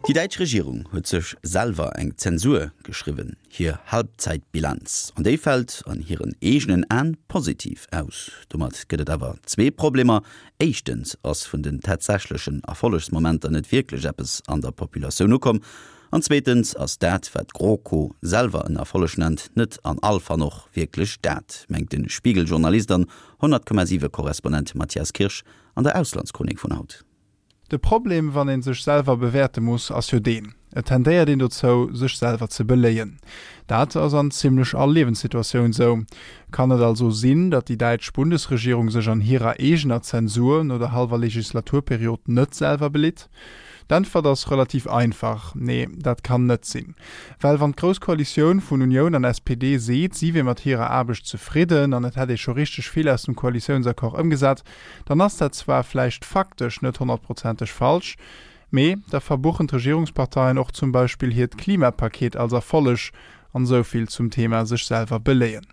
Déi däitsch Regierung huet sech selwer eng Zensur geschriwwen, hir Halbzeitbilanz. An déi fält an hiren eegenen Aen positiv aus. Domat gëtt et awer zwee Problemer, Éischtens ass vun den tatsächlechen Erfollegsmomenter net wierklech eppes an der Populatioun ukomm. An zweetens ass dat, wat d'GroKo selwer en Erfolleg nennt, net an all Fall och wierklech dat, mengt de Spiegel-Journalist an 100,7 Korrespondent Matthias Kirsch an der Auslandschronik vun haut. De Problem, wann ee sech selwer bewäerte muss, ass jo deen, Et tendéiert een dozou, sech selwer ze beléien. Dat ass an zimlech all Liewenssituatioun sou. Kann et also sinn, datt déi däitsch Bundesregierung sech an hirer eegener Zensur no der hallwer Legislaturperiod net selwer belitt? D'Äntwert ass relativ einfach, Nee, dat kann net sinn. Well wann d'Grouss Koalitioun vun Unioun an SPD seet, si wier mat hirer Aarbecht zefridden an et hätt ee scho richteg vill aus dem Koalitiounsaccord ëmgesat, dann ass dat zwar vläicht faktesch net honnertprozenteg falsch, mee da verbuchen d'Regierungsparteien och zum Beispill hiert Klimapaket als Erfolleg, an esou vill zum Thema sech selwer beléien.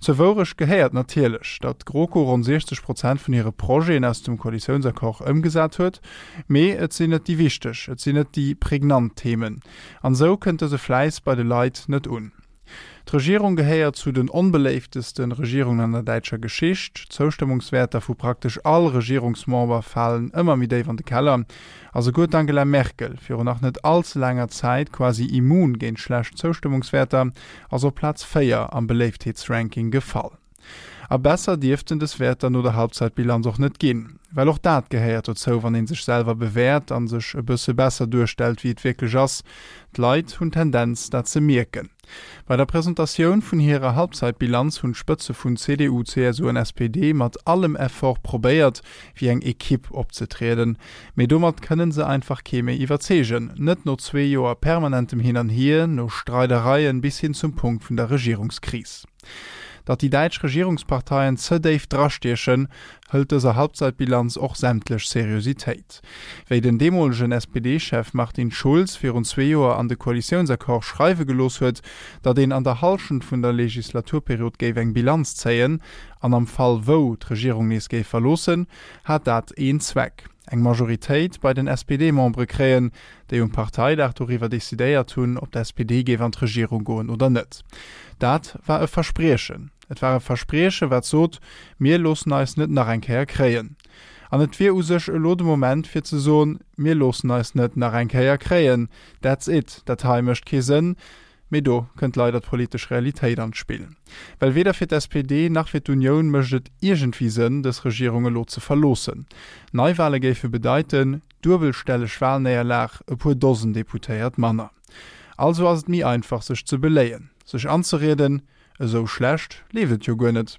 Zur Wourecht gehéiert natierlech, datt d'GroKo ronn 60 Prozent vun hire Projeten aus dem Koalitiounsaccord ëmgesat huet, mee et sinn net déi wichteg, et sinn net déi prägnant Themen, an esou kënnt dëse Fläiss bei de Leit net un. D'Regierung gehéiert zu den onbeléiftesten Regierungen an der däitscher Geschicht. D'Zoustëmmungswäerter vu praktesch all Regierungsmember falen ëmmer méi déif an de Keller. A souguer d'Angela Merkel, virun nach net all ze laanger Zäit quasi immun géint schlecht Zoustëmmungswäerter, ass op Plaz 4 am Beléiftheetsranking gefall. A besser dierften des Wäerter no der Halbzeitbilanz och net ginn. Well och dat gehéiert dozou, wann ee sech selwer bewäert a sech e bësse besser duerstellt, wéi et wierklech ass. D'Leit hunn d'Tendenz, dat ze mierken. Bei der Presentatioun vun hirer Halbzeitbilanz hunn d'Spëtze vun CDU, CSU an SPD mat allem Effort probéiert, wéi eng Ekipp opzetrieden. Mee domat kënne se einfach kee méi iwwerzeegen. Net no zwee Joer permanentem Hin an Hier, no Streidereien bis hin zum Punkt vun der Regierungskris. Datt déi däitsch Regierungsparteien ze déif drastiechen, hëlt dëser Halbzeitbilanz och sämtlech Seriositéit. Wéi den deemolegen SPD-Chef Martin Schulz virun zwee Joer an de Koalitiounsaccord schreiwe gelooss huet, datt een an der Hallschent vun der Legislaturperiod géif eng Bilanz zéien, an am Fall wou d'Regierung nees géif verloossen, hat dat een Zweck, eng Majoritéit bei den SPD-Membere kréien, déi um Parteidag doriwwer decidéiert hunn, ob d'SPD géif an d'Regierung goen oder net. Dat war e Verspriechen. Et war e Versprieche wat sot, Mir loossen eis net nach eng Kéier kréien. An et wier u sech elo de Moment fir ze soen, Mir loossen eis net nach eng Kéier kréien. That's it. Dat hei mécht kee Sënn. Mee do kënnt leider d'politesch Realitéit an d'Spill. Well weder fir d'SPD nach fir d'Unioun mécht et iergendwéi Sënn, dës Regierung elo ze verloossen. Neiwale géife bedeiten, duebelstelleg Walnéierlag, e puer Dosen Deputéiert manner. Also ass et méi einfach sech ze beléien, sech anzerieden, esou schlecht leeft et jo guer net.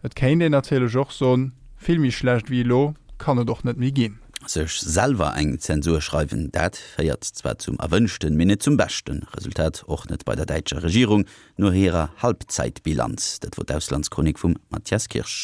Et kéint een natierlech och soen, vill méi schlecht wéi elo kann et och net méi ginn. Sech selwer eng Zensur schreiwen, dat féiert zwar zum erwënschten, mee net zum beschten Resultat, och net bei der däitscher Regierung no hirer Halbzeitbilanz. Dat wor d'Auslandschronik vum Mathias Kirsch.